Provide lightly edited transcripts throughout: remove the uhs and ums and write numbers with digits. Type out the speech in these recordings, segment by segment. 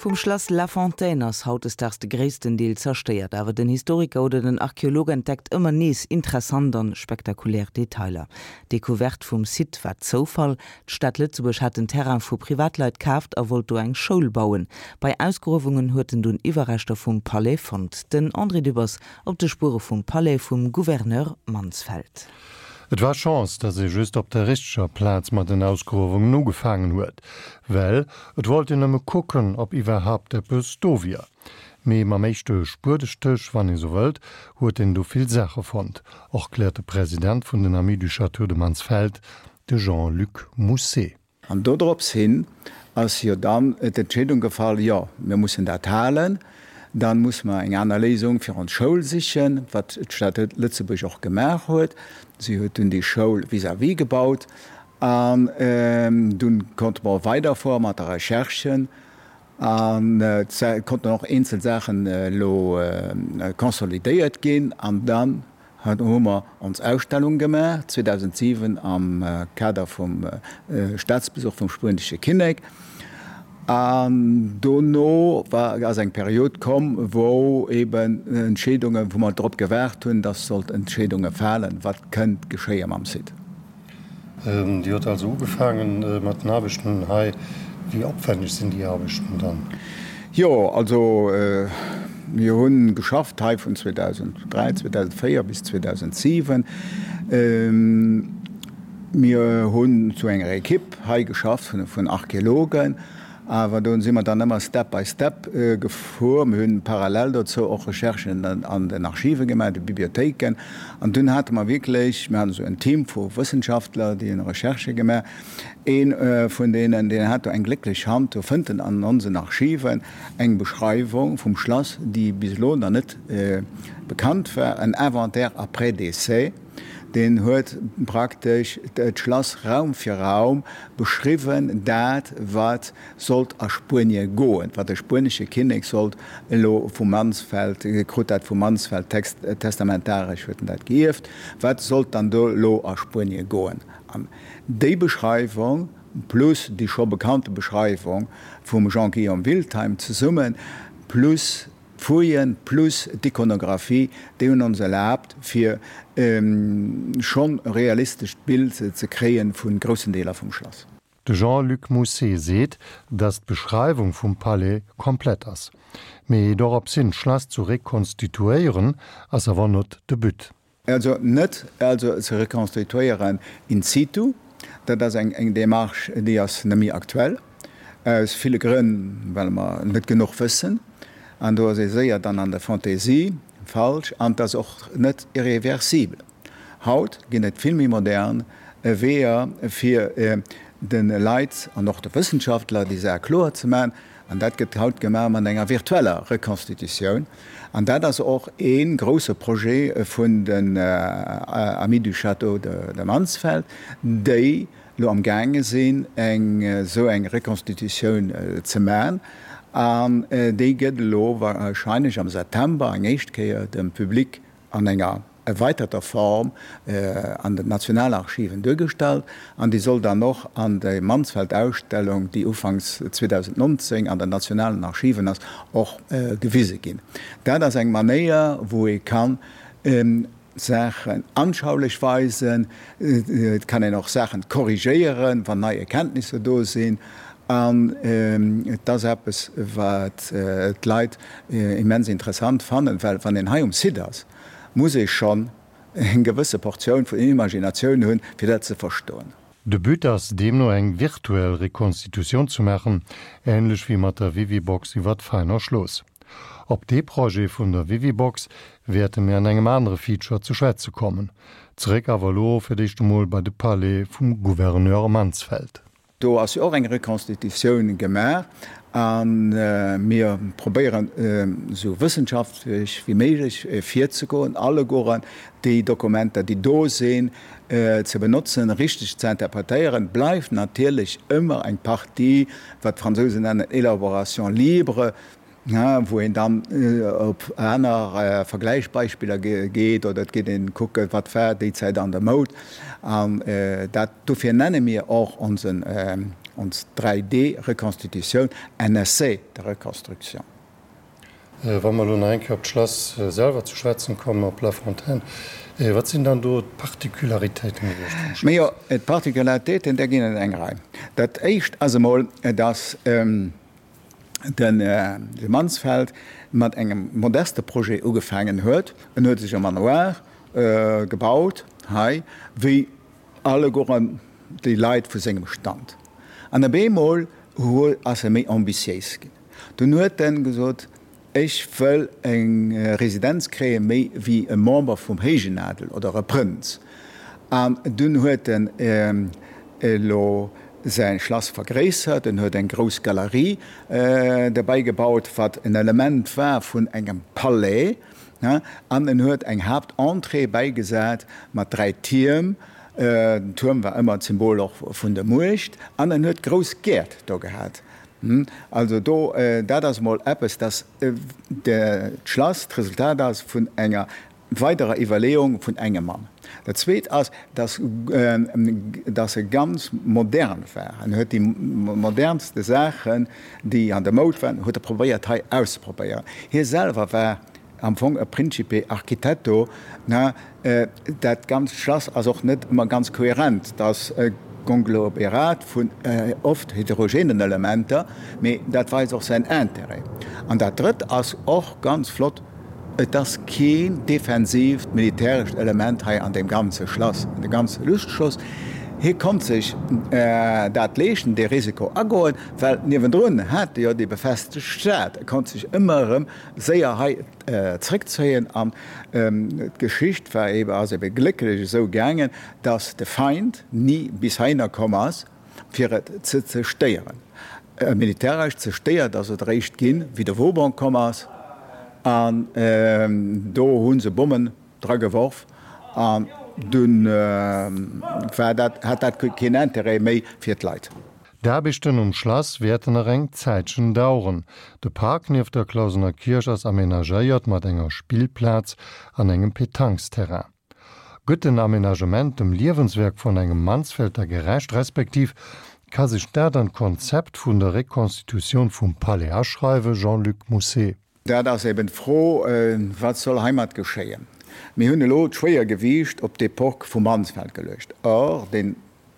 Vum Schlass La Fontaine ass hautdesdaags de gréissten Deel zerstéiert, awer den Historiker oder den Archeolog entdeckt ëmmer nees interessant an spektakulär Detailer. D'Decouverte vum Site war Zoufall, D'Stad Lëtzebuerg hat den Terrain vu Privatleit kaaft a wollt do eng Schoul bauen. Bei Ausgruewungen huet en dunn Iwwerreschter vum Palais fonnt. Den André Dübbers op de Spuere vum Palais vum Gouverneur Mansfeld. Et war Chance, datt ee just op der richteger Plaz mat den Ausgruewungen ugefaangen huet, well et wollt een nëmme kucken, ob iwwerhaapt eppes do wier. Mee mam éischte Spuedestéch, wann ee sou wëllt, huet een du vill Saache fonnt, erkläert de President vun den Amis du Château de Mansfeld, de Jean-Luc Mousset. An dodrops hin ass jo dann d'Entscheedung gefall, jo, mir mussen dat halen, da musse mer eng aner Léisung fir ons Schoul sichen, wat d'Stad Lëtzebuerg och gemaach huet. Si huet dunn déi Schoul vis-à-vis gebaut an dunn konnte mer weiderfuere mat der Recherche an et konnten och eenzel Saachen elo consolidéiert ginn an dann hu mer ons Ausstellung gemaach 2007 am Kader vum Staatsbesuch vum spuenesche Kinnek. An dono war, ass eng Period komm, wou eben Entscheedungen, wou mer drop gewaart hunn, dass sollt Entscheedunge falen, wat kënnt geschéie mam Site. Dir hutt also ugefaange mat den Aarbechten hei. Wéi opwänneg sinn déi Aarbechten dann? Jo, also mir hu geschafft hei vun 2003, 2004 bis 2007. Mir hunn zu enger Ekipp hei geschafft vun Archeologen. Awer do si mer dann ëmmer step by step gefuer. Mir hunn parallel dozou och Recherchen an den Archive gemaach, de Bibliothéiken. An dunn hate mer wierklech, mir haten esou en Team vu Wëssenschaftler, déi hunn Recherchë gemaach. Ee vun deenen, deen hat do eng glécklech Hand, do fënnt en an onsen Archiven eng Beschreiwung vum Schlass, déi bis elo nach net bekannt war, en Inventaire après décès. Deen huet praktesch d'Schlass Raum fir Raum beschriwwen, dat wat sollt a Spuenie goen, wat de spuenesche Kinnek sollt elo vu Mansfeld, e krut dat vu Mansfeld text, testamentaresch huet en dat geierft, wat sollt dann do elo a Spuenie goen. An déi Beschreiwung plus déi scho bekannte Beschreiwung vum Jean-Guillaume Wiltheim zesummen, plus D'Fouillen plus d'Ikonographie, déi hunn ons erlaabt, fir schonn e realistescht Bild ze kréie vu groussen Deeler vum Schlass. De Jean-Luc Mousset seet, datt d'Beschreiwung vum Palais komplett ass. Mee doropshin d'Schlass zu rekonstituéieren, ass awer not de But. Also net also ze rekonstituéieren in situ, dat ass eng Démarche, déi ass net méi aktuell, aus ville Grënn, well mer net genuch wëssen, an do ass ee séier dann an der Fantaisie falsch, an et ass och net irreversibel. Haut ginn et vill méi modern Weeër, fir de Leit an och de Wëssenschaftler déi Saach kloer ze maachen, An dat gëtt haut gemaach mat enger virtueller Reconstitutioun. An dat ass och ee grouse Projet vun den Amis du Château de Mansfeld, déi elo am gaange sinn, eng esou eng Reconstitutioun ze maachen. An déi gëtt elo wahrscheinlech am September eng éischt Kéier dem Public an enger erweiterter Form an den Nationalarchiven duergestallt an déi soll dann och an der Mansfeld-Ausstellung, déi ufanks 2019 an den nationalen Archiven ass, och gewise ginn. Dat ass eng Manéier, wou ee kann Saachen anschaulech weisen, et kann een och Saachen korrigéieren, wann nei Erkenntnisser do sinn. An et ass eppes, wat d'Leit immens interessant fannen, well wann een hei um Site ass, muss ee schonn eng gewësse Portioun vun Imaginatioun hunn, fir dat ze verstoen. De But ass deemno eng virtuell Rekonstitutioun ze maachen, änlech wéi mat der Vivibox iwwer d'Veiner Schloss. Op dee Projet vun der Vivibox wäerte mir an engem anere Feature ze schwätze kommen. Zeréck awer elo fir d'éischt emol bei de Palais vum Gouverneur Mansfeld. Do ass jo och eng Reconstitutioun gemaach a mir probéieren esou wëssenschaftlech wéi méiglech virzegoen, allegueren déi Dokumenter, déi do sinn, ze benotzen, richteg ze interpretéieren. Bleift natierlech ëmmer eng Partie, wat d'Fransousen nennen élaboration libre, wou een dann op aner Vergläichsbeispiller geet oder et geet een kucken, wat war déi Zäit an der Moud. An dat, dofir nenne mir och onsen. Ons 3D-Reconstitutioun, en essai de reconstruction. Wa mer elo nach eng Kéier op d'Schlass selwer ze schwätzen kommen, op La Fontaine, wat sinn dann do d'Particularitéiten gewiescht vum Schlass? Majo, d'Particularitéiten, där ginn et eng Rei. Dat éischt ass emol, dass de Mansfeld mat engem modeste Projet ugefaangen huet. En huet sech e Manoir gebaut hei, wéi allegueren déi Leit vu sengem Stand. An op eemol ass e méi ambitiéis ginn. Dunn huet en gesot, Ech wëll eng Residenz kréien, méi wéi e Member vum héijen Adel oder e Prënz. An dunn huet en elo säi Schlass vergréissert, en huet eng grouss Galerie derbäi gebaut, wat en Element war vun engem Palais, an en huet eng Haaptentrée bäigesat mat 3 Tierm. Den Tuerm war ëmmer d'Symbol och vun der Muecht. An en huet grouss Gäert do gehat. Also do, dat ass emol eppes, dass d'Schlass d'Resultat ass vun enger weiderer Iwwerleeung vun engem Mann. Dat Zweet ass, dass dass e ganz modern war. En huet déi modernste Saachen, déi an der Moud waren, huet e probéiert hei auszeprobéieren. Hie selwer war am Fong e Principe architetto, ne? Dat ganzt Schlass ass och net ëmmer ganz kohärent, et ass e Konglomerat vun oft heterogenen Elementer, mee dat weist och säin Intérêt. An dat Drëtt ass och ganz flott, et ass keen defensiivt militärescht Element hei an deem ganze Schlass, an deem ganze Lustschloss. Hie konnt sech dat leeschten, dee Risiko agoen, well niewendrun hat e jo déi befestegt Stad. E konnt sech ëmmer erëm séier hei zréckzéien an d'Geschicht war ebe, ass ebe glécklech esou gaangen, datt de Feind ni bis heihinner komm ass, fir et ze zerstéieren. Militäresch zerstéiert ass et eréischt ginn, wéi de Vauban komm ass an do hu se Bommen dra geworf an dunn war dat, hat dat keen Intérêt méi fir d'Leit. D'Aarbechten um Schlass wäerten nach eng Zäitchen daueren. De Park nieft der Clausener Kierch ass amenagéiert mat enger Spillplaz an engem Pétanquesterrain. Gëtt den Amenagement dem Liewenswerk vun engem Mansfelter gerecht, respektiv ka sech dat an d'Konzept vun der Reconstitutioun vum Palais aschreiwen? Jean-Luc Mousset. Dat ass eben d'Fro, Wat soll heimat geschéien? Mir hunn elo d'Schwéiergewiicht op d'Epoque vum Mansfeld geluecht. Or, dee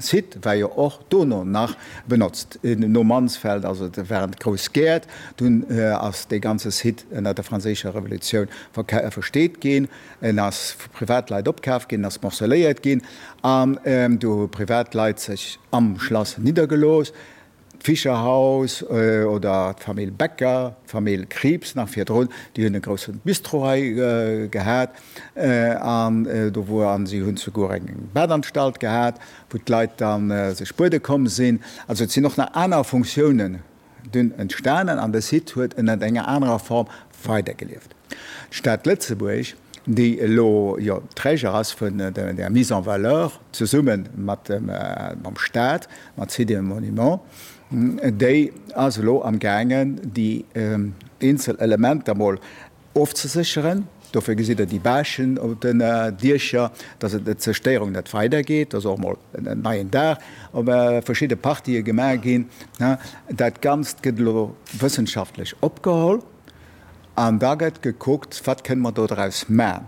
Site war jo och dono nach benotzt. No Mansfeld, also et waren d'grouss Gäert, dunn ass dee ganze Site ënner der Franséischer Revolutioun versteet ginn, en ass vu Privatleit opkaf ginn, en ass morceléiert ginn an du hu Privatleit sech am Schlass niddergelooss. D'Fischerhaus oder d'Famill Becker, d'Famill Krieps nach virdrun, déi hunn e grousse Bistro hei gehat an do wor, an si hunn souguer eng Badanstalt gehat, wou d'Leit da sech buede komm sinn. Also et sinn och nach aner Funktiounen dunn entstanen an de Site huet ënnert enger anerer Form weidergelieft. D'Stad Lëtzebuerg, déi elo jo Träger ass vun der Mise en valeur, zesumme mat mam Staat, mat Sites et Monuments, déi ass elo am gaangen, déi eenzel Elementer mol ofzesécheren. Dofir gesitt Der déi Bâchen op den Diecher, dass et d'Zerstéierung net weidergeet, dass och mol en neien Daach op verschidde Partië gemaach ginn. Dat Ganzt gëtt elo wëssenschaftlech opgeholl. An da gëtt gekuckt, wat kënne mer do draus man?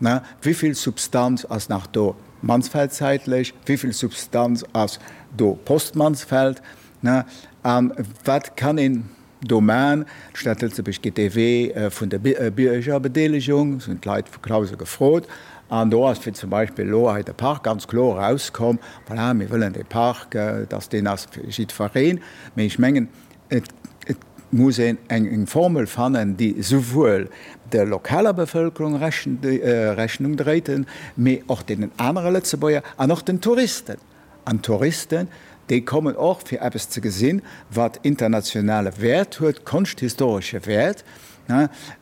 Wéi vill Substanz ass nach do Mansfeldzäitlech, wéi vill Substanz ass do post-Mansfeld? A wat kann een do man? D'Stad Lëtzebuerg geet dee Wee vun der Biergerbedeelegung, se hunn d'Leit vu Clausen gefrot. An do ass fir zum Beispill elo hei de Park ganz kloer erauskomm, voilà, mir wëllen dee Park, dass deen ass fir jiddwereen. Mee ech mengen, Et muss een eng Formel fannen, déi souwuel der lokaler Bevëlkerung Rechnung dréit, mee och deenen anere Lëtzebuerger an och den Touristen. An d'Touristen, déi kommen och, fir eppes ze gesinn, wat internationale Wäert huet, konschthistoresche Wäert.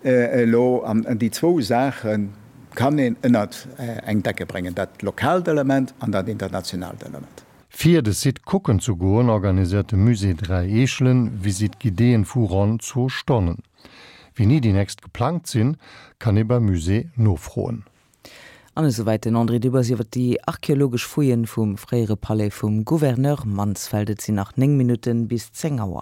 Elo, an déi zwou Saache kann een ënnert eng Decke bréngen, dat lokaalt Element an dat internationaalt Element. Fir de Site kucken ze goen, organiséiert de Musée 3 Eechelen Visite guidéeën vu ronn zwou Stonnen. Wéini déi nächst geplangt sinn, kann ee beim Musée nofroen. An esouwäit den André Dübbers iwwer déi archeologesch Fouillen vum fréiere Palais vum Gouverneur Mansfeld. Et sinn nach 9 Minutten bis 10 Auer.